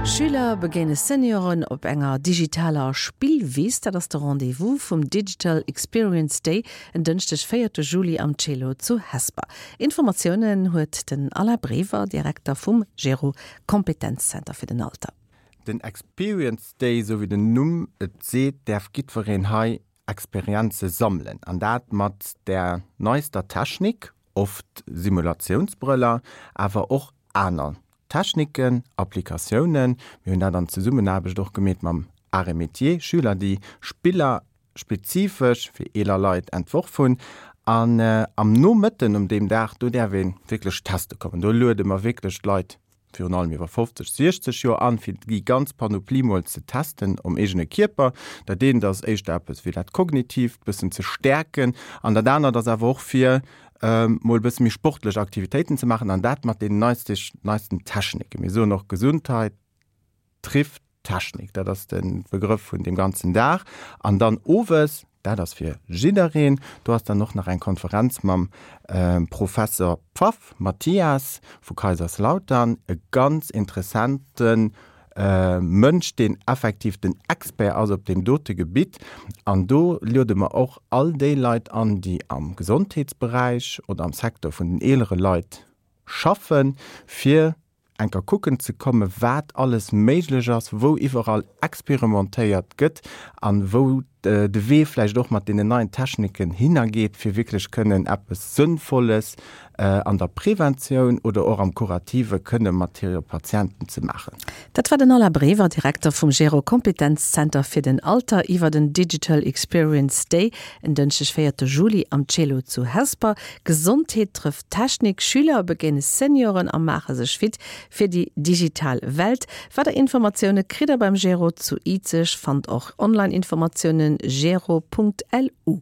Schüler begéine Senioren op enger digitaler Spillwiss. Dat ass de Rendez-vous vum Digital Experience Day en Dënschdeg, véierte Juli am Celo zu Hesper. Informatiounen huet den Alain Brever, Direkter vum Gero Kompetenzzenter fir den Alter. Den Experience Day, esou wéi den Numm et seet, däerf giddwereen hei Experienze sammelen an dat mat der neister Technik, oft Simulatiounsbrëller, awer och aner Techniken, Applikatiounen. Mir hunn dat an Zesummenaarbecht och gemeet mam Arts et Métiers, Schüler, déi Spiller spezifesch fir eeler Leit entworf hunn. An am Nomëtten um deem Dag, do däerf ee wierklech teste kommen. Do luede mer wierklech d'Leit virun allem iwwer 50, 60 Joer an, fir déi ganz Panoplie mol ze testen um eegene Kierper. Dat eent ass éischter eppes fir dat Kognitiivt bëssen ze stäerken an dat anert ass awer och fir mol e bësse méi sportlech Aktivitéiten ze maachen an dat mat den neisten Techniken. Mir soen och Gesundheit trifft Technik, dat ass de Begrëff vun deem ganzen Dag. An dann owes, dat ass fir jiddereen, do ass dann och nach eng Konferenz mam Professor Pfaff Mathias vu Kaiserslautern, e ganz interessante Mënsch, deen effektiv den Expert ass op deem dote Gebitt. An do luede mer och all déi Leit an, déi am Gesondheetsberäich oder am Secteur vun den eelere Leit schaffen, fir enker kucken ze kommen, wat alles méiglech ass, wou iwwerall experimentéiert gëtt an wou de Wee vläicht och mat deenen neien Techniken hinnergeet, fir wierklech kënnen eppes Sënnvolles an der Preventioun oder och am Kurative kënne mat hire Patienten ze maachen. Dat war den Alain Brever, Direkter vum Gero Kompetenzzenter fir den Alter iwwer den Digital Experience Day en Dënschdeg 4 Juli am Celo zu Hesper. Gesondheet trëfft Technik, Schüler begéine Senioren a maache sech fit fir déi digital Welt. Weider Informatioune kritt der beim Gero zu Izeg. Fannt och Online-Informatiounen gero.lu.